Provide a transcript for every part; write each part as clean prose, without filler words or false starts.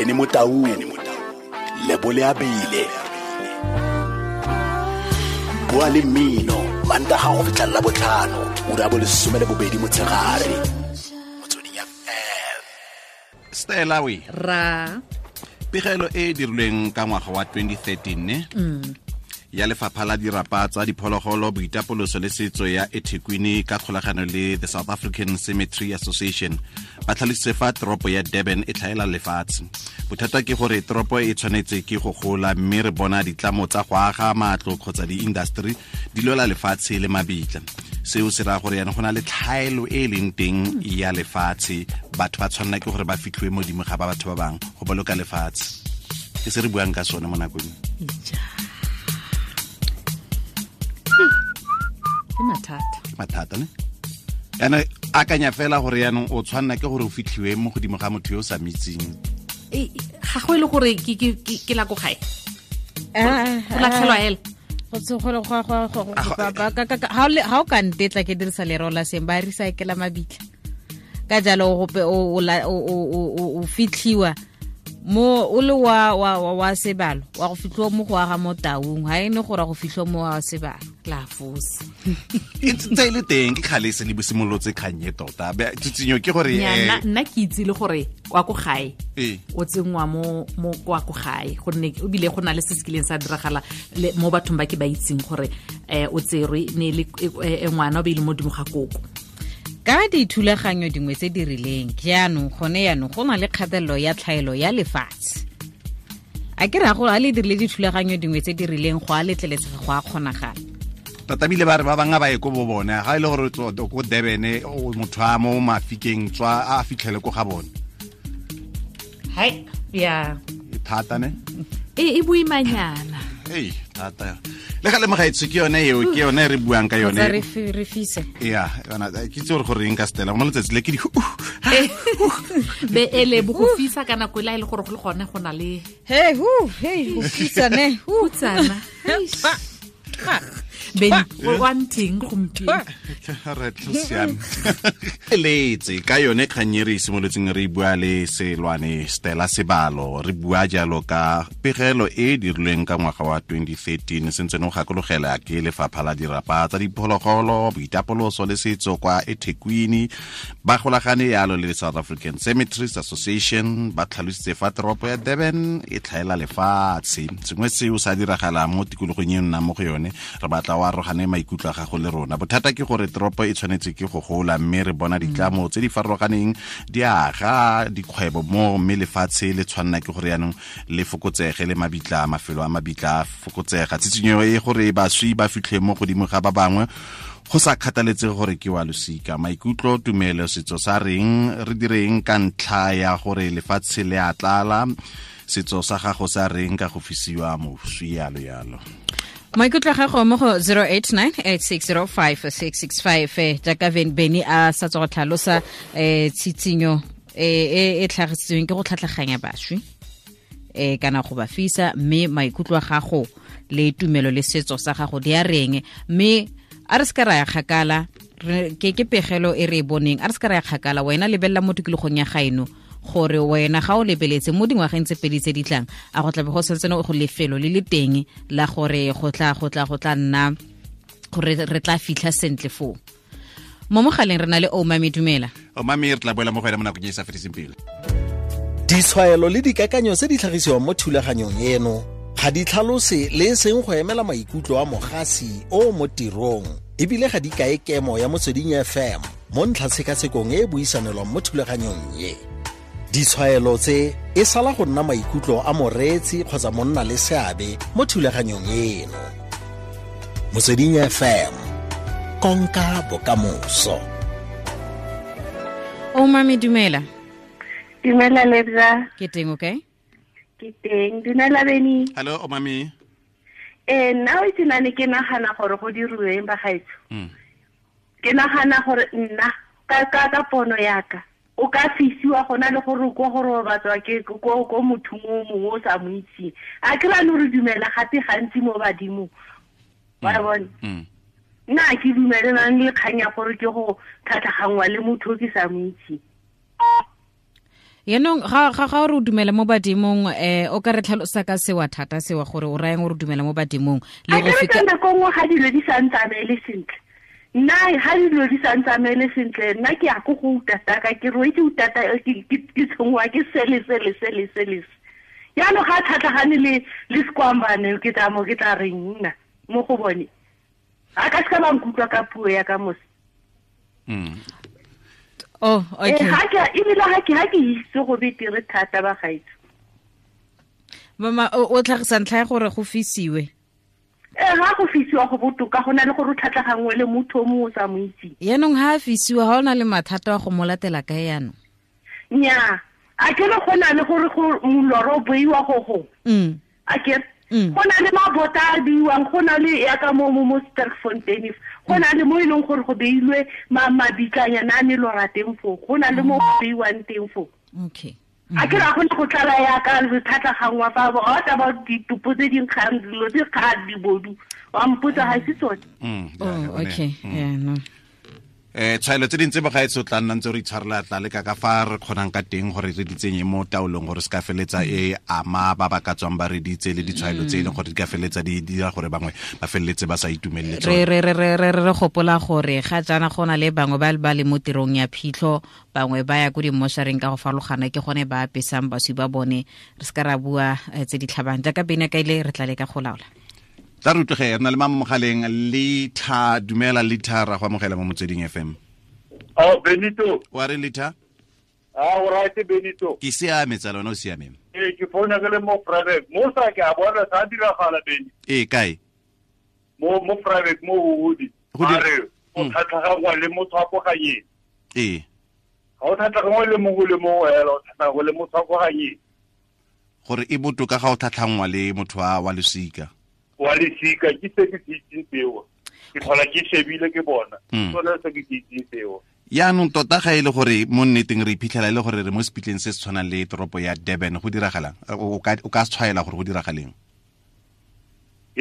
Benny Motaung, Lebole Abile, Bua le Mmino, Mantaga go fitlha la botlhano, ura bo 12 motshegare. Motsweding FM. Stella we. Ra. Pegelo e dirilweng ka ngwaga wa 2013 ne? Ya lefapha la dirapa tsa diphologolo, boitapoloso le setso ya eThekwini ka kgolagano le the South African Cemetery Association ba tlhalositse fa toropo ya Durban e tlhaela lefatshe. Bothata ke gore toropo e tshwanetse ke go gola, mme re bona ditlamo tsa go aga matlo kgotsa di-industry di lwela lefatshe le mabitla. Seo se raya gore yana go na le tlhaelo e leng teng ya lefatshe, batho ba tshwanela ke gore ba fitlhiwe modimo ga ba batho ba bangwe go boloka lefatshe. Ke se re buang ka sone mo nakong. Ke mathata. Mathata ne? Yana akanya fela gore yaanong o tshwanela ke gore o fitlhiwe mo godimo ga motho yo o sa mitseng. Ga go e le gore ke la ko gae. Go latlhelwa hela. Ga o ka ntetla ke dirisa lereo la seng, ba recycle mabitla. Ka jalo gope o fitlhiwa mo o le wa sebalo, wa go fitlhiwa mo go aga mo taung, ha e ne gore go fitlhiwa mo wa sebalo. La fosa. E ntse e le teng, ke kgale se le bosimolotse kgang e tota. Tsitsinyo ke gore nna ke itse le gore kwa ko gae o tsenngwa mo kwa ko gae, gonne o bile go na le se se kileng sa diragala mo bathong ba ke ba itseng gore o tserwe ne le ngwana o be ile mo dimo ga koko. Ka dithulaganyo dingwe tse di rileng jaanong gone yaanong go na le kgatelelo ya tlhaelo ya lefatshe. A ke ra go a le dirile dithulaganyo dingwe tse di rileng go a letleletsega go a kgonagala. Tota bile ba re ba bangwe ba ye ko bo bone, ga e le gore ko Durban motho a mo mafikeng tswa a fitlhele ko ga bone. Hai, ya. E thata ne? E boimanyana. Ei, thata. Le ga le mogaetsho ke yone eo, ke yone re buang ka yone. Re fise. Ya, yona ke itse gore eng ka Stella, mo letsatsi le ke di be ele bo go fisa ka nako e le gore go le gone go na le hey hu hey go fisa ne hutsana. Ben one thing gompieno. Re tlo siame. Letse ka yone kgang e re simolotseng re bua le Selwane Stella Sebalo, re bua jalo ka pegelo e dirilweng ka ngwaga wa 2013, sentse no gakologela ke lefapha la dirapa tsa diphologolo, boitapoloso le setso kwa eThekwini, ba golagane yalo le South African Cemeteries Association, ba tlhalositse fa toropo ya Durban e tlhaela lefatshe. Sengwe seo sa diragala mo tikologong e nnang mo go yone, re batla wa arogane maikutlo a gago le rona. Bothata ke gore toropo e tshwanetse ke go gola, mme re bona ditlamo tse di farologaneng di aga dikgwebo mo, mme lefatshe le tshwanela ke gore yaanong le fokotsege, le mabitla, mafelo a mabitla a fokotsega. Tsitsinyo e gore baswi ba fitlhe mo godimo ga ba bangwe go sa kgathaletsege gore ke wa losika, maikutlo, tumelo, setso sa reng, re direng ka ntlha ya gore lefatshe le a tlala, setso sa gago sa reng ka go fisiwa moswi, yalo yalo. Maikutlo a gago mo go 0898605665, jaaka Benny a sa tswa go tlhalosa tshitsinyo e tlhagisitsweng ke go tlhatlhaganya baswi kana go ba fisa, mme maikutlo a gago le tumelo le setso sa gago di a reng. Mme a re se ka ra ya kgakala, ke pegelo e re e boneng, a re se ka ra ya kgakala. Wena lebelela mo tikologong ya gaeno gore wena ga o lebeletse mo dingwageng tse pedi tse di tlang, a go tlabe go santse go lefelo le le teng la gore go tla nna gore re tla fitlha sentle foo. Mo mogaleng re na le Omami, dumela. Omami, re tla boela mo go ena mo nakong e sa fediseng pelo. Ditshwaelo le dikakanyo tse di tlhagisiwang mo thulaganyong eno ga di tlhalose le e seng go emela maikutlo a mogasi o mo tirong, ebile ga di kae kemo ya Motsweding FM mo ntlhatshekasekong e e buisanelwang mo thulaganyong e. Ditshwaelo tse e sala go nna maikutlo a moreetsi kgotsa monna le seabe mo thulaganyong eno. Motsweding FM, konka bokamoso. Omami, dumela. Dumela Lebza. Ke teng, okay? Ke teng. Dumela Benny. Hello Omami. Nna o itse nane ke nagana gore go diriweng bagaetsho. Ke nagana gore nna ka pono yaka o ka fisiwa gona le gore ko gore o batswa ke ko motho mo mongwe o sa mo itseng. A ke rano re dumela gape gantsi mo badimo. Wa bona? Nna ke dumelelang le kgang ya gore ke go tlhatlhagangwa le motho o ke sa mo itseng. Yaanong ga o re o dumela mo badimong, o ka re tlhalosa ka sewa thata sewa gore o rayang o re dumela mo badimong le go feta nako nngwe ga dilo di sa ntsamaele sentle. Nna ga dilo di sa ntsamaele sentle, nna ke ya ko go utata ka ke roetse utata ke tshongwa ke sele sele sele sele. Yaanong ga tlhatlhagane le sekwambane ke tla mo ke tla reng nna mo go bone. A ka se ba nkutlwa ka puo ya ka mose. Oh, okay. Ebile ga ke itse go betere thata ba gaetso. Mama o tlhagisa ntlha ya gore go fisiwe. Ga go fisiwa go botoka go na le gore o tlhatlhagangwe le motho o mongwe o sa mo itseng. Yaanong ga a fisiwa ga o na le mathata wa go mo latela kae yaanong? Nnyaa, a ke re go na le gore moloro o beiwa go gongwe. A ke go na le mabota a beiwang, go na le yaka mo Sterkfontein, go na le mo e leng gore go beilwe mabitlanyana a melora teng foo, go na le mo go beiwang teng foo. Okay. A ke ra go ne go tlala yaka re tlhatlhagangwa fa ga o tla ba ditopo tse di nkgang dilo tse kgang dibodu wa mpotsa ga se tsone. Oh, okay. Yeah, no. Tshwaelo tse dintse bagaetso tla nna ntse re itshwarela tla leka ka fa re kgonang ka teng gore re di tsenye mo taolong gore se ka feletsa e ama ba ba ka tswang ba re ditse le ditshwaelo tse e leng gore di ka feletsa di dira gore bangwe ba feleletse ba sa itumelele tsone. Re gopola gore ga jaana go na le bangwe ba ba le mo tirong ya phitlho, bangwe ba ya ko dimmošareng ka go farologana, ke gone ba apesang baswi ba bone. Re se ka ra bua tse di tlhabang jaaka bene ka ile re tla leka go laola. Tla re utlwege re na le mama mogaleng Lita. Dumela Lita, ra go amogela mo Motsweding FM. Oh, Benito. Wa re Lita? Ah, o right Benito. Ke siame tsala, wena o siame? Ee, ke founa ke le mo private. Mo sa ke a bona sa diragala Beni. Ee, kae? Mo private mo Hodi. A re o tlhatlhagangwa le motho wa ko ganyeng. Ee. Ga o tlhatlhagangwa le mongwe le mongwe hela, o tlhatlhagangwa le motho wa ko ganyeng. Gore e botoka ga o tlhatlhangwa le motho wa losika. Wa lesika ke se ke se itseng seo. Ke tlhola ke shebile ke bona. Sone se ke se itseng seo. Yaanong tota ga e le gore mo nneteng re iphitlhela e le gore re mo sepitleng se se tshwanang le toropo ya Durban, go diragalang? O ka tshwaela gore go diragaleng?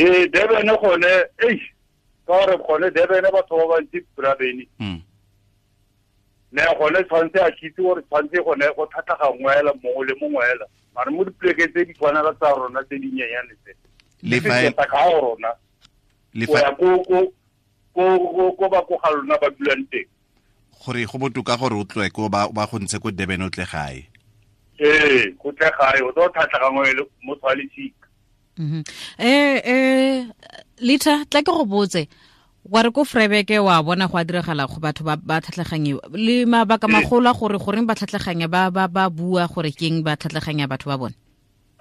Ee, Durban gone, eish, ka gore gone Durban batho ba bantsi bra Beni. Ne gone tshwanetse a kitse gore tshwanetse gone go tlhatlhagangwe hela mongwe le mongwe hela. Mare mo dipolekeng tse di tshwanela tsa rona tse dinyenyane tse. Le fa ka rona le fa ko ba ko ga lona ba dulang teng. Gore go botoka gore o tloe ko ba go ntshe ko Durban o tle gae. Ee, go tle gae o tlo tlhatlhagangwe le motho wa lesika. Lita, tla ke go botse wa re ko Vryburg wa bona go a diragala go batho ba tlhatlhaganyiwa le mabaka magolo a gore goreng ba tlhatlhaganya ba bua gore keng ba tlhatlhaganya batho ba bone.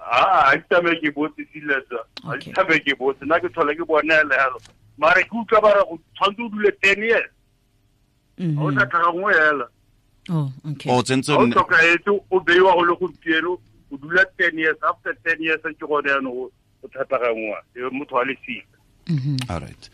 Ah, a tame ke botse siletsa. A tame ke botse nna ke tlhola ke bona hela. Mare ke utlwa ba re go tshwanetse o dule 10 years. O sa tlhagangwe hela. Oh, okay. O tsentse o tlhokaetse o beiwa go le gompieno o dula 10 years, after 10 years ke gone jaanong o tlhatlhagangwa e motho wa lesika. All right.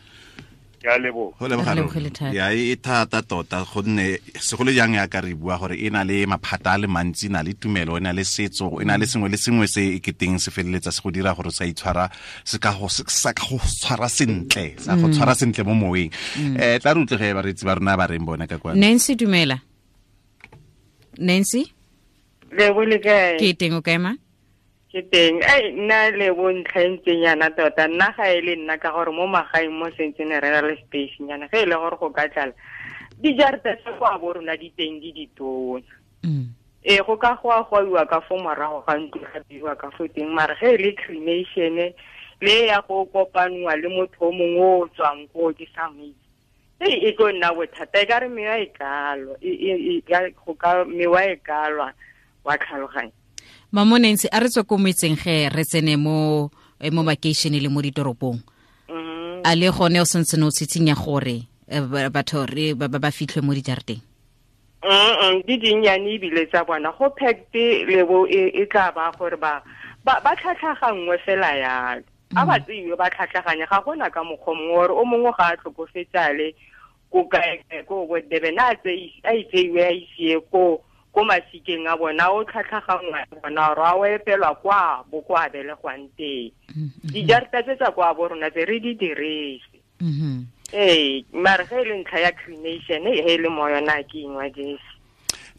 Ke a leboga. Go leboga. Ya e thata tota gonne segolo jang ya ka re bua gore e na le maphata a le mantsi, e na le tumelo, e na le setso, e na le sengwe le sengwe se e keteng se feleletsa se go dira gore sa itshwara se ka go sa go tshwara sentle, sa go tshwara sentle mo moweng. Tla re utlwege bareetsi ba rona ba reng bona ka kwa. Nancy, dumela. Nancy? Lebo le kae? Ke teng, o kae ma? Ke teng. Ai nna le bontlha ntseng yana tota nna ga e le nna ka gore mo magaeng mo sentsene re na le space nyana ge e le gore go ka tlala dijarata tsa kwa bo rona di teng di ditona. Ee, go ka go a goiwa ka fo morago ga ntlo ga beiwa ka fo teng, mare ge e le cremation le ya go kopanwa le motho o mongwe o tswang ko ke sa mo itse, e tlo nna bothata. E ka re mewa e kalwa, go ka mewa e kalwa wa tlhaloganya. Mamo Nancy, a re tswe ko metseng ge re tsene mo makeishene le mo ditoropong. A le gone o sentse o tshitshinya gore batho re ba fitlhwe mo dijarateng? Di dinnyane ebile tsa bona go packed lebo e tla ba gore ba tlhatlhagangwe fela yalo. A ba tseiwe ba tlhatlhaganye, ga gona ka mokgwa mongwe gore o mongwe ga a tlhokofetsale ko kae ko bo Durban a tseiwe a isie ko ko masikeng a bona o tlhatlhagangwa bona gore a o epelwa kwa bo kwa belegwang teng. Dijarata tse tsa kwa bo rona tse re di dirise. Ee, mare ge e le ntlha ya cremation e le mo yona ke ingwa jese.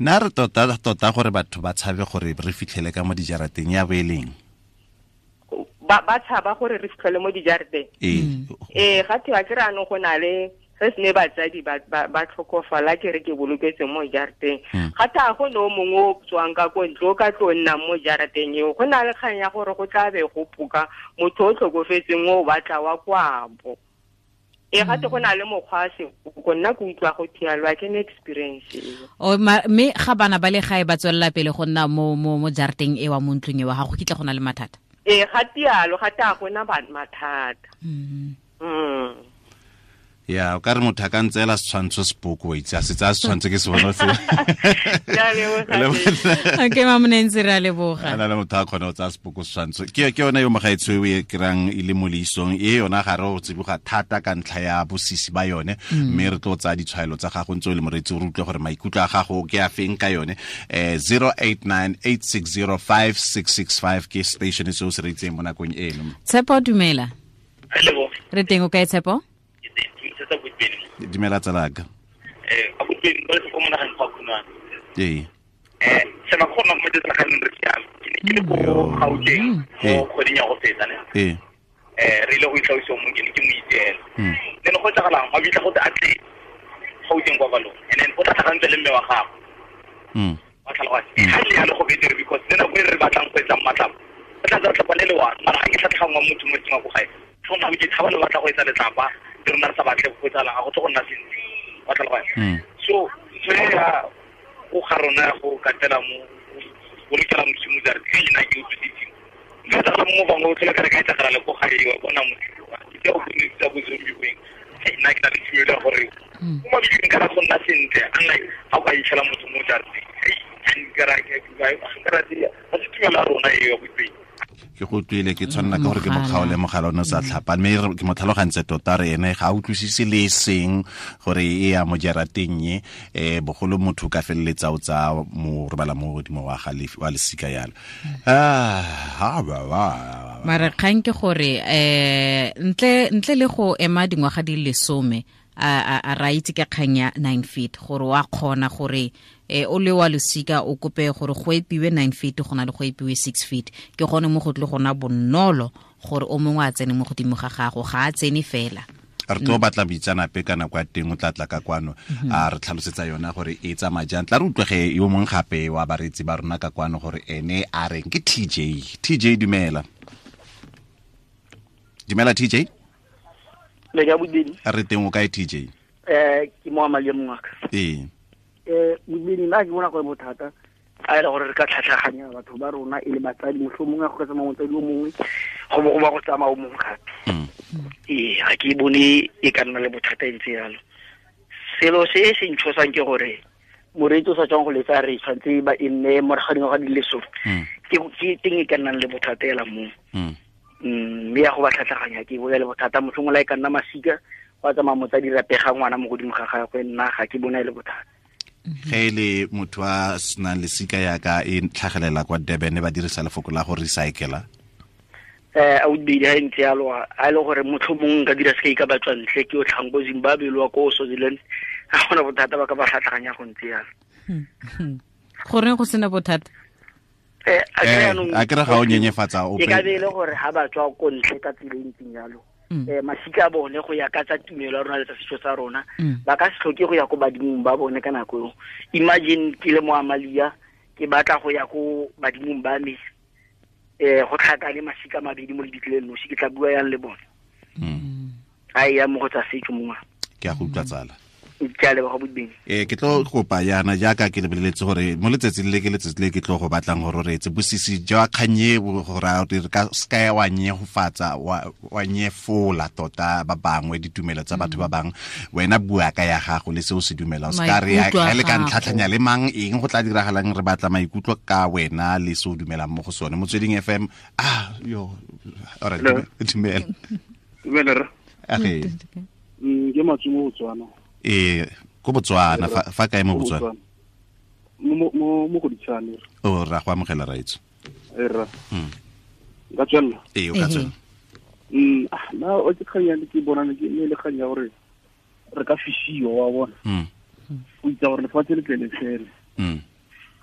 Nna re tota tota gore batho ba tshabe gore re fitlhele ka mo dijarateng ya boeleng. Ba tshaba gore re fitlhele mo dijarateng. Ee, ga thiwa ke re anong go na le re se ne batsadi ba tlhokofala ke re ke boloketse mo jarateng. Ga tha go no mongwe o tswang ka ko ntle o ka tlo nnang mo jarateng eo, go na le kgang ya gore go tla be go puka motho o tlhokofetseng o batla wa kwabo. E ga te go na le mokgwa se go nna ke utlwa go thialwa ke ne experience eo. O mme ga bana ba le gae ba tswelela pele go nna mo jarateng e wa mo ntlong e wa gago kitla go na le mathata. E ga tialo ga ta go na mathata. Ya o ka re motho a ka ntseela setshwantsho sepoko wa itse a se tsaya setshwantsho ke se bona se. Okay, Mamonentsi, re a leboga. Ana le motho a kgone go tsaya sepoko setshwantsho. Ke yone yo mogaetsho e kry-ang e le mo leisong e yona ga re o tsiboga thata ka ntlha ya bosisi ba yone, mme re tlo tsaya ditshwaelo tsa gago ntse o le moreetsi o re utlwe gore maikutlo a gago ke a feng ka yone. 0898605665 ke station se o se reetseng mo nakong eno. Tshepo, dumela. Re teng o kae, Tshepo? Dumela tsalaka. Ee. Ee. Re ile go itlhaosa mo ke ne ke mo itseela. Then go etsagalang ba bitla go te atle Gauteng kwa balong and then o tla tlhagantse le mme wa gago. Wa tlhaloganya. Ha le ya le go betere because le nako e re batlang go etsa matlapa. O tla tsa tlhapa le le one mara ga ke tlhatlhangwa motho mo tseng wa go gae. Go ke tshaba le batla go etsa letlapa le rona re sa batle go etsalang ga go tle go nna sentle. Wa tlhaloganya. So ntho ya go ga rona go katela mo bolokela modimo jare ke nna ke utlwisitseng. Nka tsala mo bangwe o tlhola ka re ka etsagala le ko gae wa bona motho ke o bone tsa bozombi weng. Nna ke na le tumelo ya gore mo mabitleng ka go nna sentle unlike ga o ka itlhela motho mo jarateng. Ga se tumelo ya rona eo ya boipeng. Ke go utlwile ke tshwanela ke gore ke mokgaole mogala o ne o sa tlhapa mme ke mo tlhalogantse tota re ene ga a utlwisise le seng gore e ya mo jarateng e bogolo motho ka feleletsa o tsaya mo robala mo godimo wa ga wa lesika yalo. Mara kgang ke gore ntle le go ema dingwaga di le 10 a ra itse ka kgang ya 9 feet gore wa kgona gore o le wa losika o kope gore go epiwe 9 feet go na le go epiwe 6 feet ke gone mo go tle gona bonolo gore o mongwe a tsene mo godimo ga gago ga a tsene fela. Re tlo batla boitseanape ka nako ya teng o tla tla ka kwano a re tlhalosetsa yona gore e tsamaya jang. Tla re utlwege yo mongwe gape wa bareetsi ba rona ka kwano gore ene a reng ke TJ. TJ dumela. Dumela TJ. Le ka bodini. Re teng o kae TJ? Ke mo amalie mongaka. Ee. Bodini nna ke bona gore bothata a ile gore re ka tlhatlhaganya batho ba rona e le batsadi mohlomongwe go ka tsamaya motsadi o mongwe go bo go ba go tsamaya o mongwe gape. Ee, ga ke bone e ka nna le bothata e ntse yalo. Selo se se ntshosang ke gore moreetsi o sa tswang go letsa re tshwanetse ba e nne morago ga dingwaga di le 10. Ke teng e ka nnang le bothata ela mo. Mme ya go ba tlhatlhaganya ke bona le bothata mohlomongwe la e ka nna masika go a tsamaya motsadi rapega ngwana mo godimo ga gagwe nna ga ke bona e le bothata. Ge le motho a senang lesika yaka e tlhagelela kwa Durban ba dirisa lefoko la go recycla. A o di ha ntse yalo a le gore mohlomongwe nka dira se ka batswa ntle ke o tlhang ko Zimbabwe le wa ko Swaziland ga gona bothata ba ka ba tlhatlhaganya go ntse yalo. Goreng go sena bothata? A kere ga o nyenyefatsa ope. E ka be e le gore ha ba tswa ko ntle ka tsela e ntseng yalo. Masika a bone go ya ka tsa tumelo ya rona le tsa setso sa rona ba ka se tlhoke go ya ko badimong ba bone ka nako eo. Imagine ke le mo Amalia ke batla go ya ko badimong ba me go tlhakane masika mabedi mo lebitleng nosi ke tla bua yang le bone. A ya mo go tsa setso mongwe. Ke a go utlwa tsala. Ke a leboga bodibeng. Ke tlo kopa yana jaaka ke lebeletse gore mo letsatsing le ke letsatsi le ke tlo go batlang gore o reetse bosisi jwa kganye gore re ka seka wa nyefatsa wa nyefola tota ba bangwe ditumelo tsa batho ba bangwe. Wena bua ka ya gago le se o se dumelang, se ka re ga le ka ntlhatlhanya le mang eng go tla diragalang, re batla maikutlo ka wena le se o dumelang mo go sone. Motsweding FM. Yo alright, dumela. Dumela rra. Ke Matsumo Botswana. Ee, ko Botswana, fa kae mo Botswana? Mo Goditshane. O ra go amogela raitso. Ee rra. Nka tswelela? Ee, o ka tswelela. Nna o ke kgang ya ke bona ke le kgang ya gore re ka fisiwa wa bona. O itse gore lefatshe le tle le fele.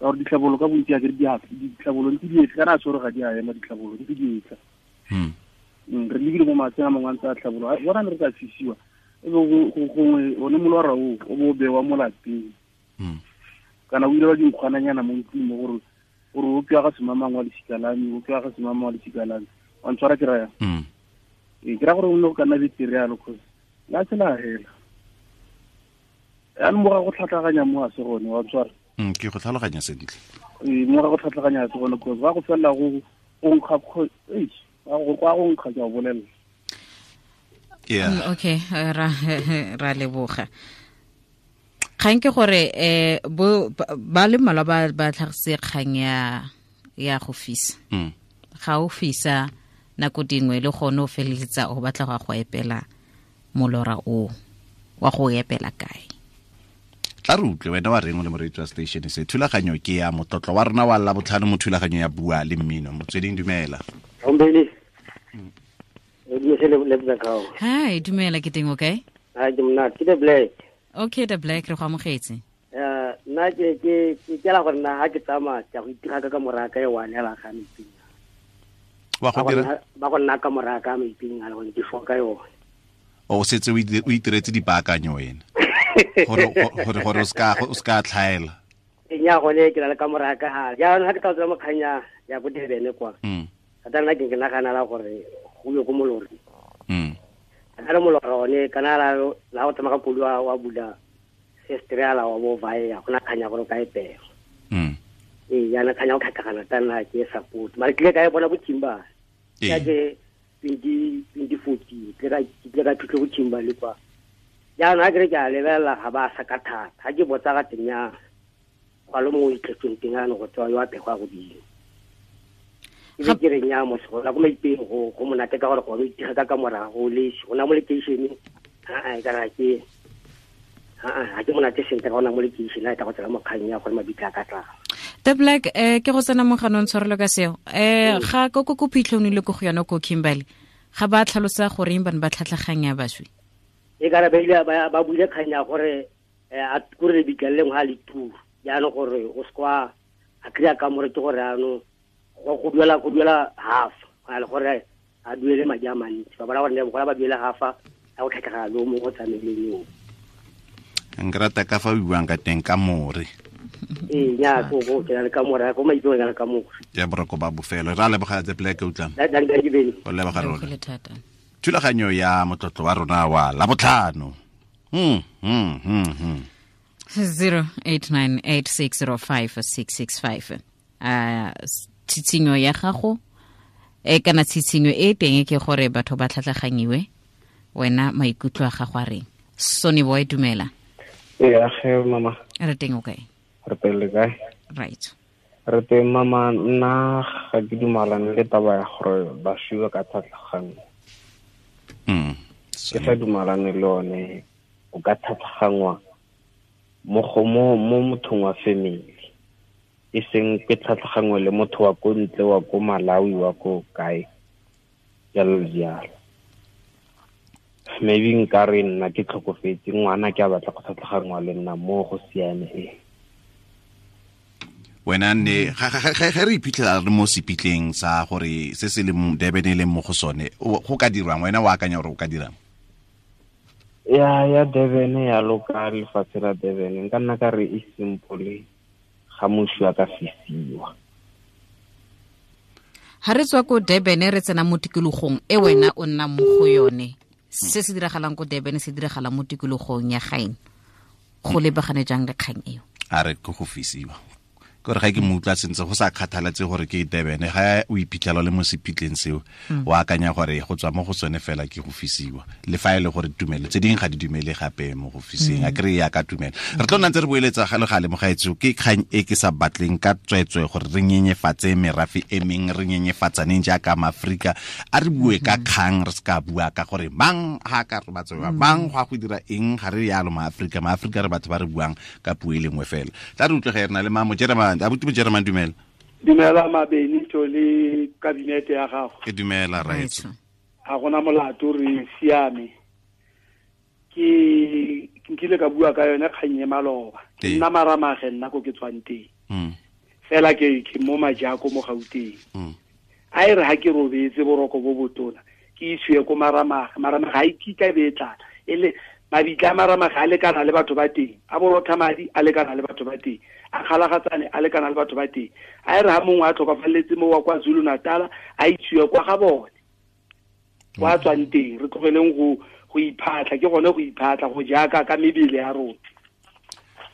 Ka gore ditlhabolo ka bontsi a ke di a ditlhabolo ntse di etla kana a tshwere ga di a ema ditlhabolo ntse di etla. Re lebile mo matseng a mangwe a ntse a tlhabolo bona ne re ka fisiwa e be gongwe one molora o o bo bewa mo lapeng. Kana o ile wa dinkgwananyana mo ntlong mo gore gore o ke ga semamang wa lesika la me, o ke ga semamang wa lesika la me. Wa ntshwara ke raya. Ee, ke ra gore o ne go ka nna betere yalo cause la tsela hela. Yaanong mo ga go tlhatlhaganya mo a se gone wa ntshwara. Ke go tlhaloganya sentle. Ee, mo ga go tlhatlhaganya se gone cause ba go felela go nkga go go nkga ke a bolelela. Yeah. Okay, ra leboga. Kgang ke gore ba le mmalwa ba tlhagise kgang ya go fisa. Ga o fisa nako dingwe le gone o feleletsa o batla go epela molora o wa go epela kae. Tla re utlwe wena wa reng o le moreetsi wa station se thulaganyo ke ya motlotlo wa rona wa Labotlhano mo thulaganyo ya Bua le Mmino. Motsweding dumela. Ombeni. Hi, dumela ke teng o kae? Hi, ke monate. Ke the Black. Okay, the Black re go amogetse. Nna ke ke la gore nna ha ke tsamaya ke go itira ka moraka e wa nela ga meping. Wa go dira? Ba go nna ka moraka meping a le gone ke foka yone. O setse o itiretse dipaakanyo wena. Gore o ska tlhaela. Nya gone ke la ka moraka ha. Jaanong ha ke tla tswa mo kganya ya bo Durban kwa. Ka nna ke nagana la gore go yo go molori. Ka re molora one kana la go tsamaya ka koloi wa bula sestrela wa bo vaea go na kganya gore ka epela. Ee, yana kganya go tlhatlhagana ta nna ke support. Mara ke ile ka e bona bo Kimba. Ka ke 2014 ke ka phitlho bo Kimba le kwa. Jaanong ha ke re ke a lebelela ga ba sa ka thata. Ha ke botsa ga teng ya kwa lo mongwe itlhetseng teng ano go tswa yo a pegwa godimo. Ke ke re nya mo se go maipeng go monate ka gore go itira ka morago le go na mo location a e kana ke a ke monate sentle ka ona mo location a e tla go tsela mo kgang ya gore mabitla ka tla. The Black ke go tsena mo ganong tshwarelo ka seo. Ga ko ko phitlhong le go yona ko Kimberley ga ba tlhalosa gore eng bana ba tlhatlhaganya baswi. E kana ba ile ba buile kgang ya gore a kure lebitla le lengwe ga le tu jaanong gore o se kwa a kry-a kamore ke gore ano go duela half a le gore a duele madi a mantsi ba bona gore ne ba duele half a go tlhatlhagana le mongwe o tsamaileng yo. Nka rata ka fa o buang ka teng ka more. Ee, nya go ke na le ka more go maipeo na le ka more. Ya boroko ba bofelo ra leboga The Black utlwa. O leboga rona. Thulaganyo ya motlotlo wa rona wa Labotlhano. 0898605665. Tshitshinyo ya gago e kana tshitshinyo e teng ke gore batho ba tlhatlaganyiwe wena maikutlo a gago a reng. Sonny Boy dumela. Ee, age mama. Re teng o kae? Re teng le kae? Right. Re teng mama, nna ga ke dumalane le taba ya gore ba fiwe ka tlhatlhaganyo. Ke sa dumalane le one o ka tlhatlhagangwa mo mothong wa family. E seng ke tlhatlhagangwe le motho wa ko ntle wa ko Malawi wa ko kae jalo jalo. Maybe nka re nna ke tlhokofetse ngwana ke a batla go tlhatlhagangwa le nna mo go siame e. Wena ne ga re iphitlhela re mo sepitleng sa gore se se leng Durban e leng mo go sone go ka dirwang wena o akanya gore o ka dirang? Ya Durban ya loka lefatshe la Durban nka nna ka re e simple ga moswi a ka fisiwa. Ha re tswa ko Durban re tsena mo tikologong e wena o nna mo go yone. Se se diragalang ko Durban se diragala mo tikologong ya gaeno. Go lebagane jang le kgang eo? A re ke go fisiwa. Gore ga ke mo utlwa sentse go sa kgathalatse gore ke Durban ga o iphitlhela le mo sepitleng seo o akanya gore go tswa mo go sone fela ke go fisiwa le fa e le gore tumelo tse dingwe ga di dumele gape mo go fiseng a kry ya ka tumelo. Re tlo nna ntse re boeletsa ga le gale mogaetso ke kgang e ke sa batleng ka tswetswe gore re nyenyefatse merafe e meng re nyenyefatsaneng jaaka maAfrika a re bue ka kgang re se ka bua ka gore mang ga ka re batsewa mang go a go dira eng ga re yalo maAfrika maAfrika re batho ba re buang ka puo e lengwe fela. Tla re utlwe ge re na le mamo Jeremane. Abuti mo Jeremane dumela. Dumela Mabenito le kabinete ya gago. Ke dumela raetso. Ha gona molato re siame. Ke nkile ka bua ka yone kgang e maloba. Nna maramage nna ko ke tswang teng. Fela ke mo Majako mo Gauteng. A e re ha ke robetse boroko bo botona ke isiwe ko Maramaga. Maramaga ga e kitla e be e tlala. E le mabitla a Maramaga a lekana le batho ba teng, a borotha madi a lekana le batho ba teng, a kgalagatsane a lekana le batho ba teng. A e re ha mongwe a tlhokafaletse mo wa kwa Zulu Natal a isiwe kwa ga bone kwa tswang teng. Re tlogeleng go iphatla, ke gone go iphatla go jaaka ka mebele ya rona.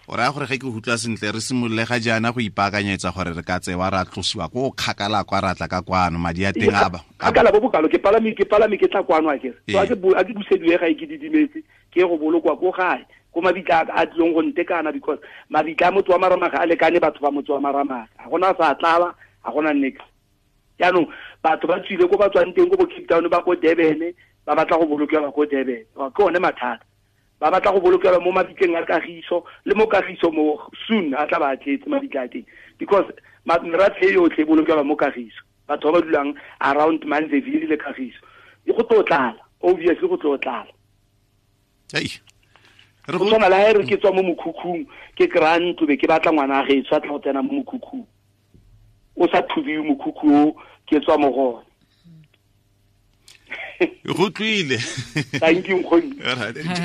O raya gore ge ke utlwa sentle re simolole ga jaana go ipaakanyetsa gore re ka tsewa ra tlosiwa ko kgakala kwa ra tla ka kwano madi a teng a ba kgakala bo bokalo. Ke palame ke tla kwano a kere. So a ke busediwe ga e ke didimetse ke go bolokwa ko gae ko mabitla a tlileng go ntekana, because mabitla a motho wa Maramaga a lekane batho ba motho wa Maramaga. Ga gona sa tlala, ga gona nix. Jaanong batho ba tswile ko ba tswang teng ko bo Cape Town ba ko Durban, ba batla go bolokelwa ko Durban. Ke one mathata. Ba batla go bolokelwa mo mabitleng a Kagiso, le mo Kagiso mo soon a tla ba tletse mabitla a teng, because merafe yotlhe e bolokelwa mo Kagiso. Batho ba ba dulang around Manzeville le Kagiso e go tlo tlala, obviously go tlo tlala. Go tshwana le ha e re ke tswa mo mokhukhung ke kry-a ntlo be ke batla ngwana a gaetsho a tla go tsena mo mokhukhung, o sa thubiwe mokhukhu o ke tswa mo go one. Go tlwile. Thank you nkgoni.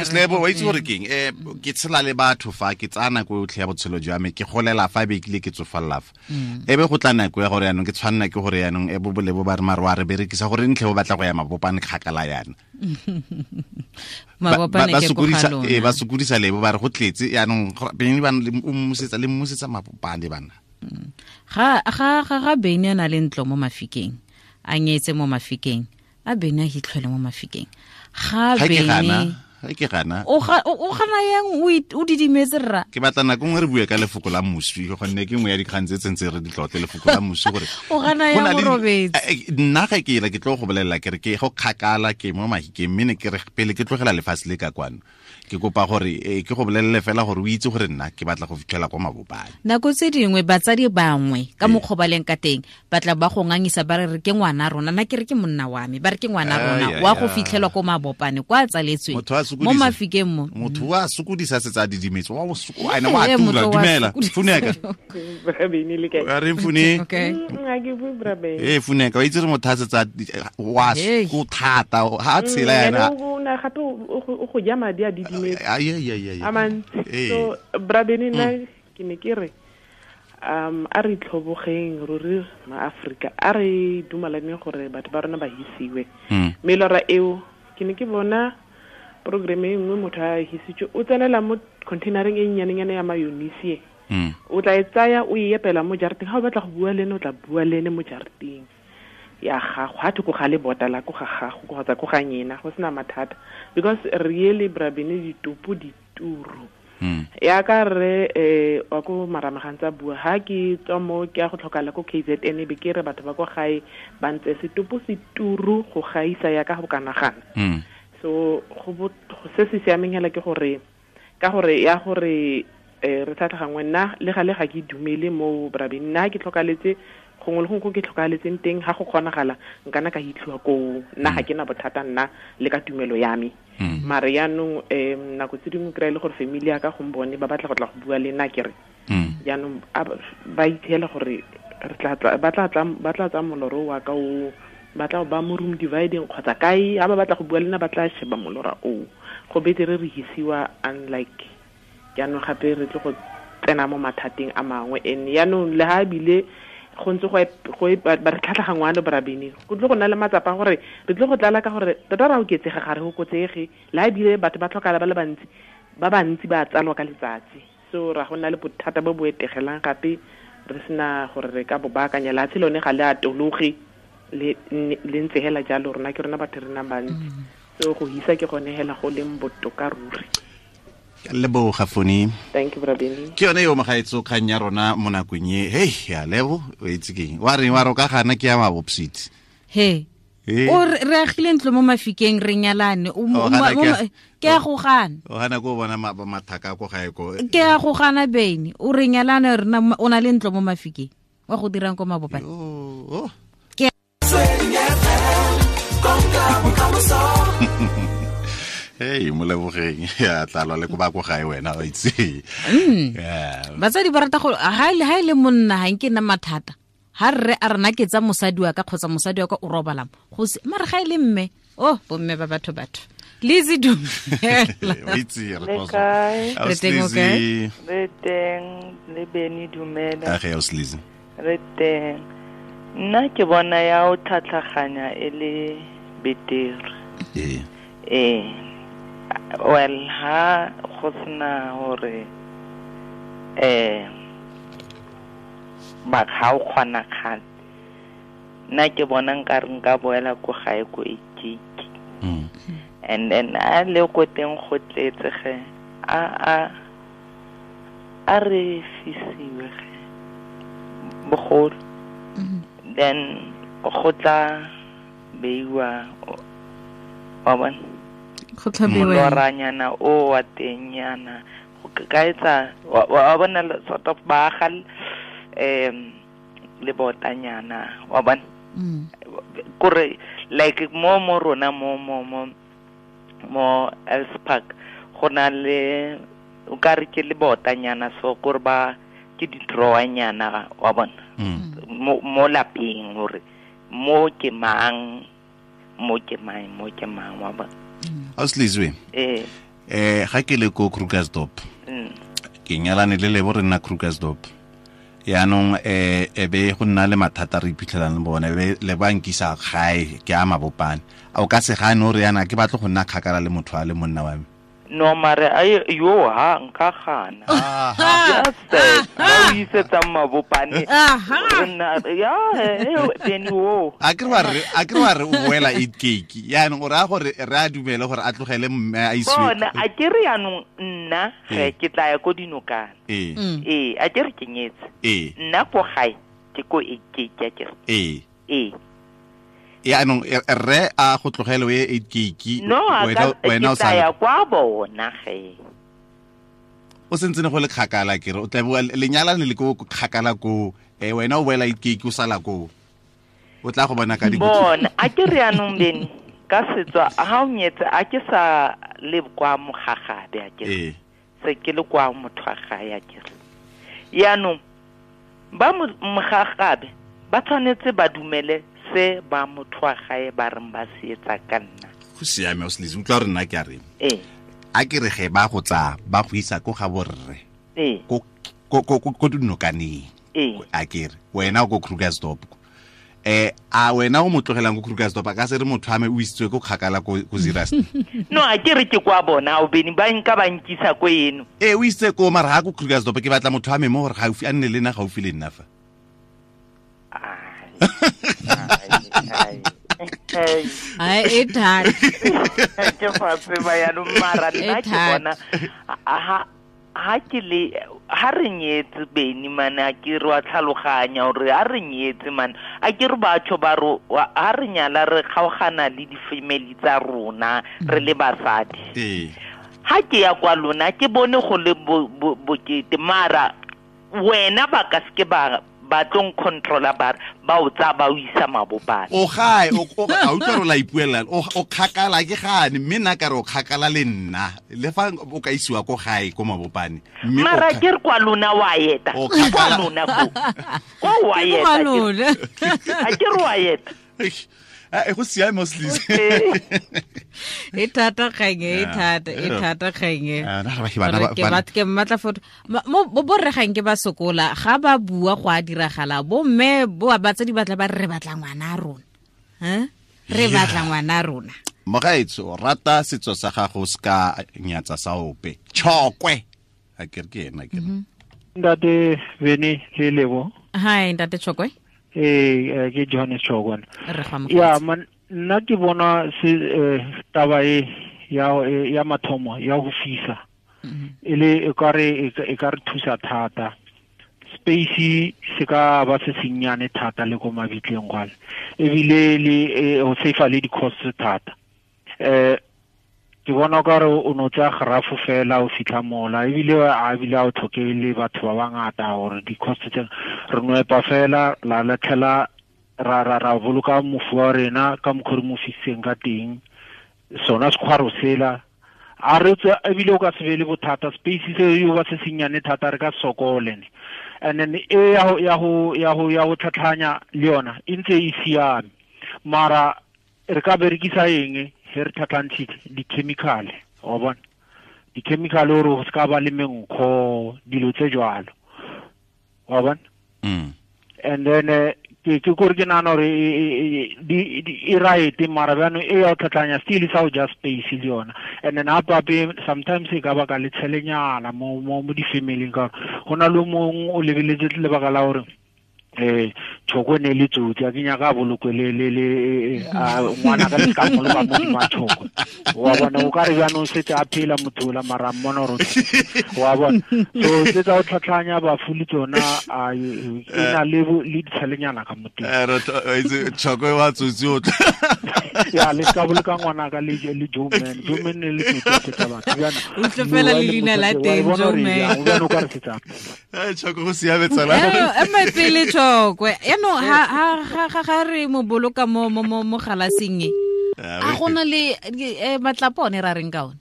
Slebo wa itse gore keng, ke tshela le batho fa ke tsaya nako yotlhe ya botshelo jwa me, ke golela fa be kile ke tsofalla fa. E be go tla nako ya gore yaanong ke tshwanna ke gore yaanong e bo bolebo ba re mare wa re berekisa gore ntlhe bo batla go ya Mabopane kgakala yana. Mabopane ke ko ga lona. Ba sokodisa lebo ba re go tletse yaanong beng ba o mmusetsa le mmusetsa Mabopane bana. Ga Bene a na le ntlo mo Mafikeng, a nyetse mo Mafikeng, a Bene a hitlhwele mo Mafikeng. Ga Bene ke gana. O gana yang o didimetse rra. Ke batla nako nngwe re bue ka lefoko la moswi, gonne ke nngwe ya dikgang tse tsentse re di tlotle lefoko la moswi gore o gana yang o robetse. Nna ga ke ela ke tlo go bolelela ke re ke go kgakala ke mo Mahikeng, mme ne ke re pele ke tlogela lefatshe le ka kwano. Ke kopa gore ke go bolelele fela gore o itse gore nna ke batla go fitlhela kwa Mabopane. Nako tse dingwe batsadi bangwe ka mokgwa ba leng ka teng ba tla ba go ngangisa ba re ke ngwana rona, nna ke re ke monna wa me, ba re ke ngwana rona wa go fitlhelwa ko Mabopane kwa tsaletsweng mo Mafikeng mo. Motho wa sokodisa setsa didimetse wa ene wa tula. Dumela Funeka. Bra re Fune. Okay. Nna ke bue Bra Bene. Funeka wa itse re motho a setsa wa go thata ha tshela yana. O na gape o go ja madi a didimetse. A mantsi. So Bra Bene nna ke ne ke re a re tlhobogeng ruri ma-Afrika, a re dumalaneng gore batho ba rona ba hisiwe. Melora eo ke ne ke bona programme e nngwe motho a hisitswe o tsenela mo containereng e nnyanenyane ya mayonnaise. O tla e tsaya o e epela mo jarateng, ga o batla go bua le ene o tla bua le ene mo jarateng ya gago, ga thoko ga lebota la ko ga gago kgotsa ko ga nyena, go sena mathata. Because really Bra Bene ditopo dituru. Ya ka re wa ko Maramagantsa bua ha ke tswa mo ke ya go tlhokala ko KZN be ke re batho ba ko gae ba ntse setopo seturu go gaisa ya ka go kanagana. So go se se siameng hela ke gore ka gore ya gore re tlhatlhagangwe nna le gale ga ke dumele mo Bra Bene, nna ke tlhokaletse gongwe le gongwe ko ke tlhokaletseng teng ga go kgonagala nkana ka hitlhiwa koo, nna ga ke na bothata nna le ka tumelo ya me. Mare yaanong nako tse dingwe kry-e le gore family ya ka gombone ba batla go tla go bua le nna ke re jaanong ba ithela gore ba tla tsaya moloro wa ka o ba tla ba mo room dividing kgotsa kae, ha ba batla go bua le nna ba tla sheba molora o. Go betere re hisiwa unlike jaanong gape re tle go tsena mo mathateng a mangwe. And yaanong le ha ebile go ntse go ba re tlhatlhagangwa le Bra Bene, go tle go nna le matsapa gore re tle go tlala ka gore tota ra oketsega ga re okotsege, le ha ebile batho ba tlhokala ba le bantsi, ba bantsi ba tsalwa ka letsatsi. So ra go nna le bothata bo bo etegelang gape re sena gore re ka bo baakanya. Lehatshe lone ga le atologe le ntse hela jalo, rona ke rona batho re nang bantsi. So go hisa ke gone hela go leng botoka ruri. Leboga Foni. Thank you Bra Bene. Ke yone yo mogaetso kgang ya rona mo nakong e. Hey, ya lebo o itse keng. Wa re wa roka gana ke ya Mabopsiti. He. O re agile ntlo mo Mafikeng re nyalane. Ke a go gana. O gana go bona mathaka ko gae ko. Ke a go gana Bene. O re nyalane rena o na le ntlo mo Mafikeng. Wa go dirang ko Mabopane. Oh. Ke Ee, molebogeng ya tlalwa le ko ba ko gae wena wa itse. Batsadi ba rata go ha e le monna ha nke nna mathata. Ha rre a rena ke tsa mosadi wa ka kgotsa mosadi wa ka o robala go se mare ga e le mme oh bomme ba batho Lizzy dumela. Itse re teng okay. Re teng le Beni dumela. A ge o Lizzy. Re teng. Nna ke bona ya o tlhatlhaganya e le betere. Ee. Well, ha go sena hore ba ga o kgona kgale. Nna ke bona nka re nka boela ko gae ko Ikiki. And then a le ko teng go tletse ge a re fisiwe ge bogolo. Then go tla beiwa wa bona go tla beiwa moloranyana o wa teng yana go ka etsa wa bona sort of ba ga le botanyana wa bona kore like mo rona mo mo Els Park go na le o ka re ke le botanyana so gore ba ke di drawanyana wa bona mo lapeng gore mo ke mang mo ke mang wa bona. Auslizwe ga ke le ko Krugersdorp ke nyalane le Lebo re nna Krugersdorp yaanong e be go nna le mathata re iphitlhelang le bone be le ba nkisa gae ke a Mabopane a o ka se gane o re yana ke batlo go nna kgakala le motho a le monna wa me. No mare a yo ha nka gana. Just ba o isetsa Mabopane nna ya then wo a ke re o boela 8 cake yaanong o raya gore re a dumele gore a tlogele mme a isiwe bona a ke re yaanong nna ge ke tla ya ko dinokana ee a ke re ke nyetse nna ko gae ke ko 8 cake a ke re ee yaanong rre a go tlogele o ye 8 cake wena o sa ya kwa bona ge o sentse ne go le kgakala ke re o tla bua lenyalane le ko kgakala ko wena o boela 8 cake o sala ko o tla go bona ka di bona a ke re yaanong Beni ka setswa ha o nyetse a ke sa le kwa mogagabe a ke re se ke le kwa motho wa gae a ke re yaanong ba mogagabe ba tshwanetse ba dumele se ba motho wa gae ba reng ba se etsa ka nna. Go siame o Lizzy utlwa re nna ke a reng a ke re ge ba go tsaya ba go isa ko ga borre ko dinokaneng a ke re wena o ko Krugersdorp a wena o mo tlogelang ko Krugersdorp a ka se re motho a me o isitswe ko kgakala ko Zeerust. No a ke re ke kwa bona o Beni ba nka ba nkisa ko eno o isitse ko mara ga ko Krugersdorp ke batla motho a me mo gore gaufi a nne le nna gaufi le nna fa. Ai e thata ke fa tseba ya no mara nna ke bona ha ke le ha re nyetse Beni mana ke re wa tlhaloganya gore ha re nyetse mana a ke re batho ba ro ha re nyala re kgaogana le di family tsa rona re le basadi ha ke ya kwa lona ke bone go le bokete mara wena ba ka se ke ba ba tlong controller ba o tsa ba o isa Mabopane o gae o a utlwa re la ipuela o kgakala ke gane mme nna ka re o kgakala le nna le fa o ka isiwa ko gae ko Mabopane mme mara ke re kwa lona wa eta kwa lona ko wa eta a ke re wa eta e go siame o Lizzy e thata kgang e thata kgang ke batla ke mmatla foto mo borre gang ke ba sokola ga ba bua go a diragala bo mme bo batsadi batla ba re batla ngwana a rona re batla ngwana a rona. Mogaetso rata setso sa gago se ka nyatsa sa ope tshokwe a ke re ke ena ke Ntate Beni le Lebo. Hi ntate Tshokwe. Ke Johannes Tshokwe. Ya man nna ke bona se taba e ya mathomo ya go fisa e le e ka re thusa thata space se ka ba se senyane thata le ko mabitleng gale ebile le o safe le di cost thata ke bona ka re o no tsa grafo fela o fitlha mola ebile a bile a o tlhoke le batho ba bangata gore di cost tse re no epa fela la latlhela ra boloka mofu wa rena ka mokgwa re mo fisitseng ka teng sona sekgwaro sela A re tswe ebile o ka se be le bothata, space se yo ba se senyane thata re ka sokole ne. And then e ya go tlhatlhanya le yona e ntse e siame. Mara re ka berekisa eng he re tlhatlhantshitse di-chemical, wa bona? Di-chemical gore go se ka ba le menkgo, dilo tse jwalo, wa bona? And then ke kore ke nahana gore e right, mara bjano e ya go tlhatlhanya still sa go ja space le yona. And then hape sometimes e ka baka le tshelenyana mo di-family-ing, ka gore go na le mongwe o lebeletse lebaka la gore Tshoko ne le tsotsi, a ke nyaka a bolokwe le ngwana ka le ka mmoloka mo hodima Tshoko, wa bona? O ka re jaanong setse a phela motho ola, mara mmona gore wa bona. So tse tsa go tlhatlhanya bafu le tsona e na le ditshelenyana ka mo teng. Tshoko wa tsotsi o tla ya le ka boloka ngwana ka le Joe Man, Joe Man ne le tsotsi tsa batho jaanong. O tle fela le leina la teng, Joe Man. O ka re setsa. Tshoko go siame tsala. Ema pele Tshokwe. Yaanong ha re mo boloka mo galaseng e, a gona le matlapa one ra reng ka one?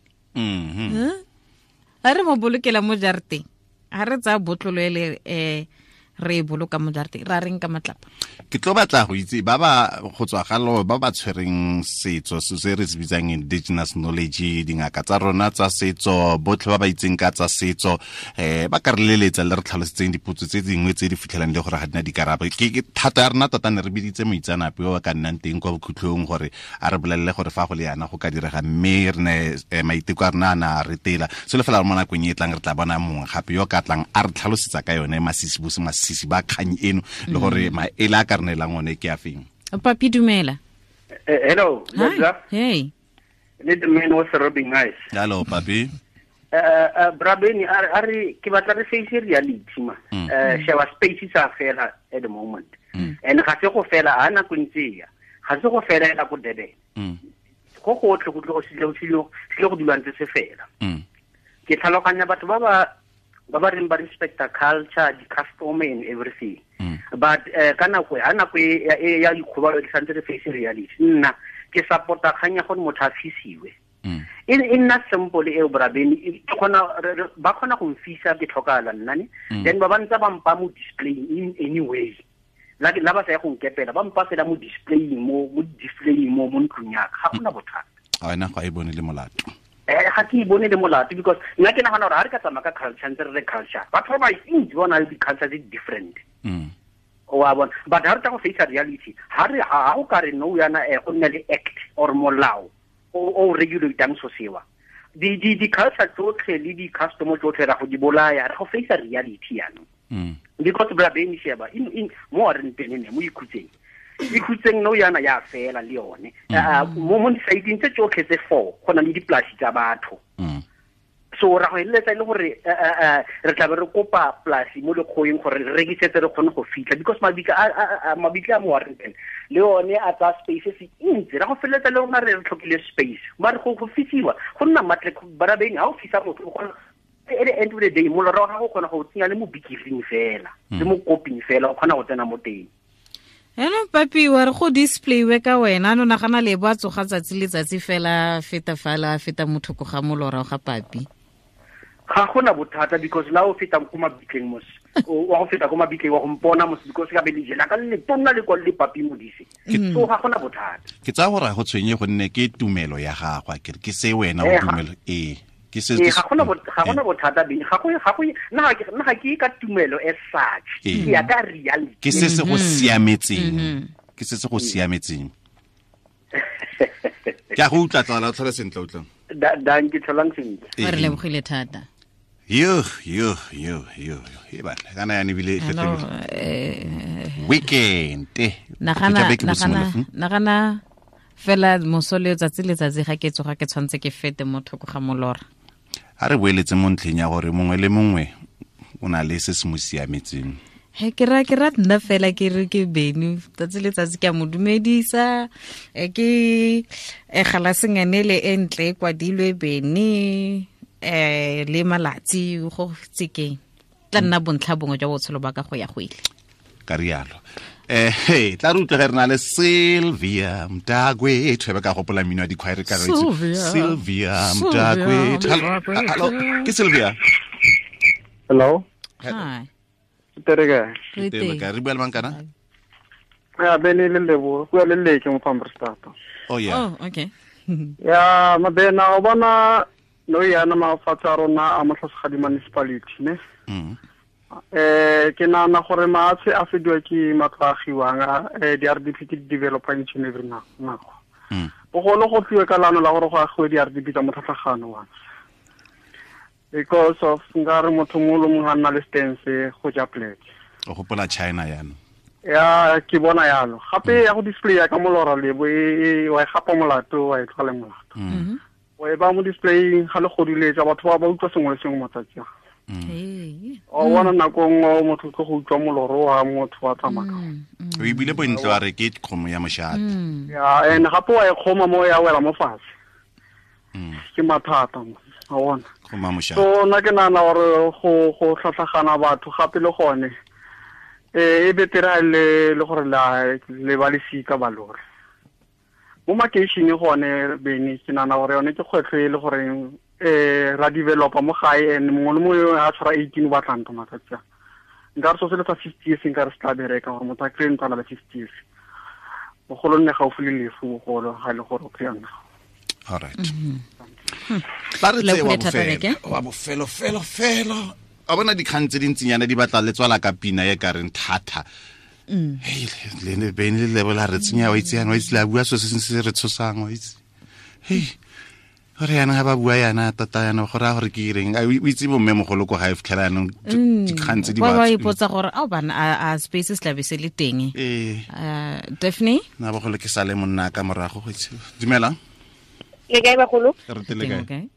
Ha re mo bolokela mo jarateng, ha re tsaya botlolo ele re e boloka mo jarateng, ra reng ka matlapa? Ke tlo batla go itse ba ba go tswa galo ba ba tshwereng setso se re se bitsang indigenous knowledge, dingaka tsa rona tsa setso, botlhe ba ba itseng ka tsa setso, ba ka re leletsa le re tlhalosetseng dipotso tse dingwe tse di fitlhelang le gore ga dina dikarabo. Ke thata ya rona tota ne re biditse moitseanape o ka nnang teng kwa bokhutlhong gore a re bolelele gore fa go le yana go ka direga, mme re ne maiteko a rona a na a retela. Selo fela mo nakong e tlang re tla bona mongwe gape yo ka tlang a re tlhalosetsa ka yone masisi ba kgang eno le gore maele a ka re neelang one ke a feng. Papi, dumela. Hello. Hey. Le the man was rubbing eyes. Hello, Papi. Brabeni, are ke batla re face reality ma. Sheba space sa fela at the moment. And ga se go fela ha nako ntse ya. Ga se go fela ela go Durban. Go gotlhe go tlo go sile go dula ntse se fela. Ke tlhaloganya batho ba ba reng ba respecta culture, the custom and everything. But ka nako ha nako ya dikgobalo di santse re face reality. Nna ke supporta kgang ya gore motho a fisiwe. E nna simple eo Brabeni, ke kgona ba kgona go mfisa ke tlhokala nna ne. Then ba ba ntse ba mpa mo display in any way. La ba sa ya go nkepela, ba mpa fela mo display mo mo ntlong ya ka, ga gona bothata. A wena ga e bone le molato. Ga ke bone le molato because nna ke nagana gore ha re ka tsamaya ka culture ntse re re culture, batho ba bantsi ba na le di-culture tse different. Wa bona? But ha re tla go face reality, ha re ha o ka re no yana go nne le act or molao o regulatang so sewa, di-culture tsotlhe le di-custom tsotlhe ra go di bolaya, re go face reality yanong. Because Brabeni sheba in mo re ntene mo ikhutseng no yana ya fela le yone. Mo di-sideng tse tsotlhe tse 4 go na le dipolasi tsa batho. So ra go eletsa le gore re tla be re kopa polasi mo lekgoeng gore re rekisetse re kgone go fitlha, because mabitla a mo Warrington le one a tsaya space se ntsi, ra go feleletsa le rona re tlhokile space. Mare go fisiwa go nna matle Brabeni, ha o fisa motho o kgona at the end of the day molora wa gago o kgona go tsenya le mo bikiring fela le mo koping fela, o kgona go tsena mo teng. Eno Papi, wa re go display ka wena, no nagana le bo tsoga tsatsi le tsatsi fela feta fala feta motho go ga molora ga Papi. Ga gona bothata because la o feta ko mabitleng mos, wa go feta ko mabitleng wa go mpona mos, because ka be le jela ka le tonna le kwa le Papi Modise. So ga gona bothata. Ke tsaya gore go tshwenye gonne ke tumelo ya gagwe, ke re ke se wena o tumelo e. Ke se ga gona bothata beng, ga go nna ga ke ka tumelo as such, ke ya ka reality. Ke se se go siametseng. Ke se se go siametseng. Ke a go utlwa tsala, o tlhole sentle utlwa. Danke, tlholang sentle. Re lebogile thata. Yo e batla kana yana ebile e fetogile. Weekend. Nagana fela moso le tsatsi le tsatsi ga ke tsoga ke tshwantse ke fete mo thoko ga molora. A re boeletse mo ntlheng ya gore mongwe le mongwe o na le se se mo siametseng. He ke ra nna fela ke re ke Beni tsatsi le tsatsi ke a mo dumedisa, ke galasengane le e ntle e kwadilwe Beni le malatsi go tsekeng tla nna bontlha bongwe jwa botshelo ba ka go ya go ile. Ka rialo. Hey, tla re utlwe re na le Sylvia Mtakwethu be ka gopola mmino wa dikhwaere ka re Sylvia Mtakwethu. Hello, ke Sylvia. Hello. Hi. Terega. Terega, re bua le mang kana? Ya bene le lebo, go le leke mo Pambrestata. Oh yeah. Oh, okay. Ya mabena o bona no yana mafatshe a rona a Motlhasegadi municipality ne. Ke nahana gore maatshe a fediwa ke matlo a agiwang di-RDP ke di-developer each and every nako. Bogolo go tliwe ka leano la gore go agiwe di-RDP tsa motlhatlhagano wa. Because of nkare motho mongwe le mongwe a nna le stance go ja pleke. O gopola China yana. Ya ke bona yalo. Gape ya go display ya ka molora lebo e wa e gapa molato wa e tlhole molato. O e ba mo display ga le godiletsa batho ba ba utlwa sengwe le sengwe matsatsi a. O bona nako nngwe motho ke go utlwa moloro wa motho wa tsamaya. O ebile bontle wa re ke kgomo ya moshate. Ya and gape wa e kgoma mo ya wela mo fatshe. Ke mathata mo. A bona. Kgoma moshate. So nna ke nahana gore go tlhatlhagana batho gape le gone. E betere le gore le ba lesika ba lore. Mo makeisheneng gone bene ke nahana gore yone ke kgwetlho e le goreng ra developa mo gae and mongwe le mongwe a tshwara 18 o batla ntlo matsatsi a. Nka re so se le sa 50 years nka re se tla bereka gore motho a kry-e ntlo a na le 50 years. Bogolo nne gaufi le lefu bogolo ga e le gore o kry-a ntlo. All right. Tla re tseye wa bofelo felo felo. A bona dikgang tse dintsinyana di batla le tswala ka pina e ka reng thata. Hey, le ne bene le lebola re tsenya wa itse yana wa itse la bua so se se re tshosang wa itse. Hey, gore yana ga ba bua yana tata yana gore a gore ke ireng o itse bomme mogolo ko ga e fitlhela yanong dikgang tse di ba ipotsa gore a bana a spaces tla be se le teng. Daphne na bogolo ke sale monna ka morago go itse. Dumela. Le kae bagolo? Re tele kae?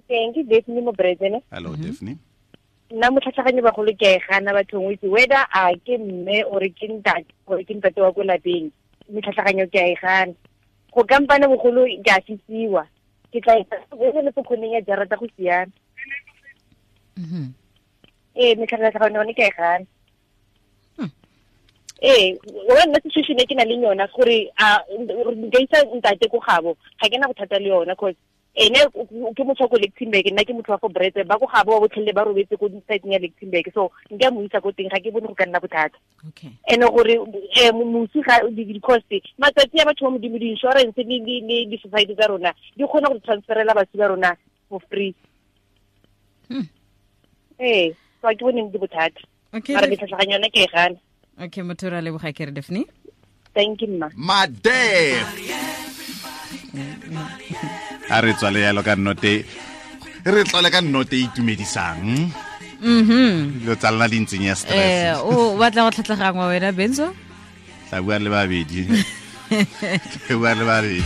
Teng ke Daphne mo Bredene. Hello Daphne. Nna motlhatlhaganyo bagolo ke a e gana bathong o itse whether a ke mme ore ke ntate ore ke ntate wa ko lapeng metlhatlhaganyo ke a e gana. Go kampane bogolo ke a fisiwa. Ke tla e le pokgoneng ya jarata go siana. Metlhatlhaganyo yone ke a e gana. Wa nna situation e ke na le yona gore a nka isa ntate ko gabo ga ke na bothata le yona cause ene ke motho wa ko Lichtenburg nna ke motho wa ko Bretse ba ko gabo ba botlhele ba robetse ko site ya Lichtenburg so nka mo isa ko teng ga ke bone go ka nna bothata. Okay. Ene gore mosi ga di-cost matsatsi a batho ba modimo di-insurance le di-society tsa rona di kgona go transferela batho ba rona for free. So ga ke bone di bothata. Mara metlhatlhaganyo yone ke e gana. Okay, motho ra leboga ke re Daphne. Thank you mma. Madef. A re tswale yalo ka nnote. Re tlole ka nnote e itumedisang. Dilo tsa lona di ntseng ya stress. O batla go tlhatlhagangwa wena Benzo? Tla bua le babedi. Tla bua le babedi.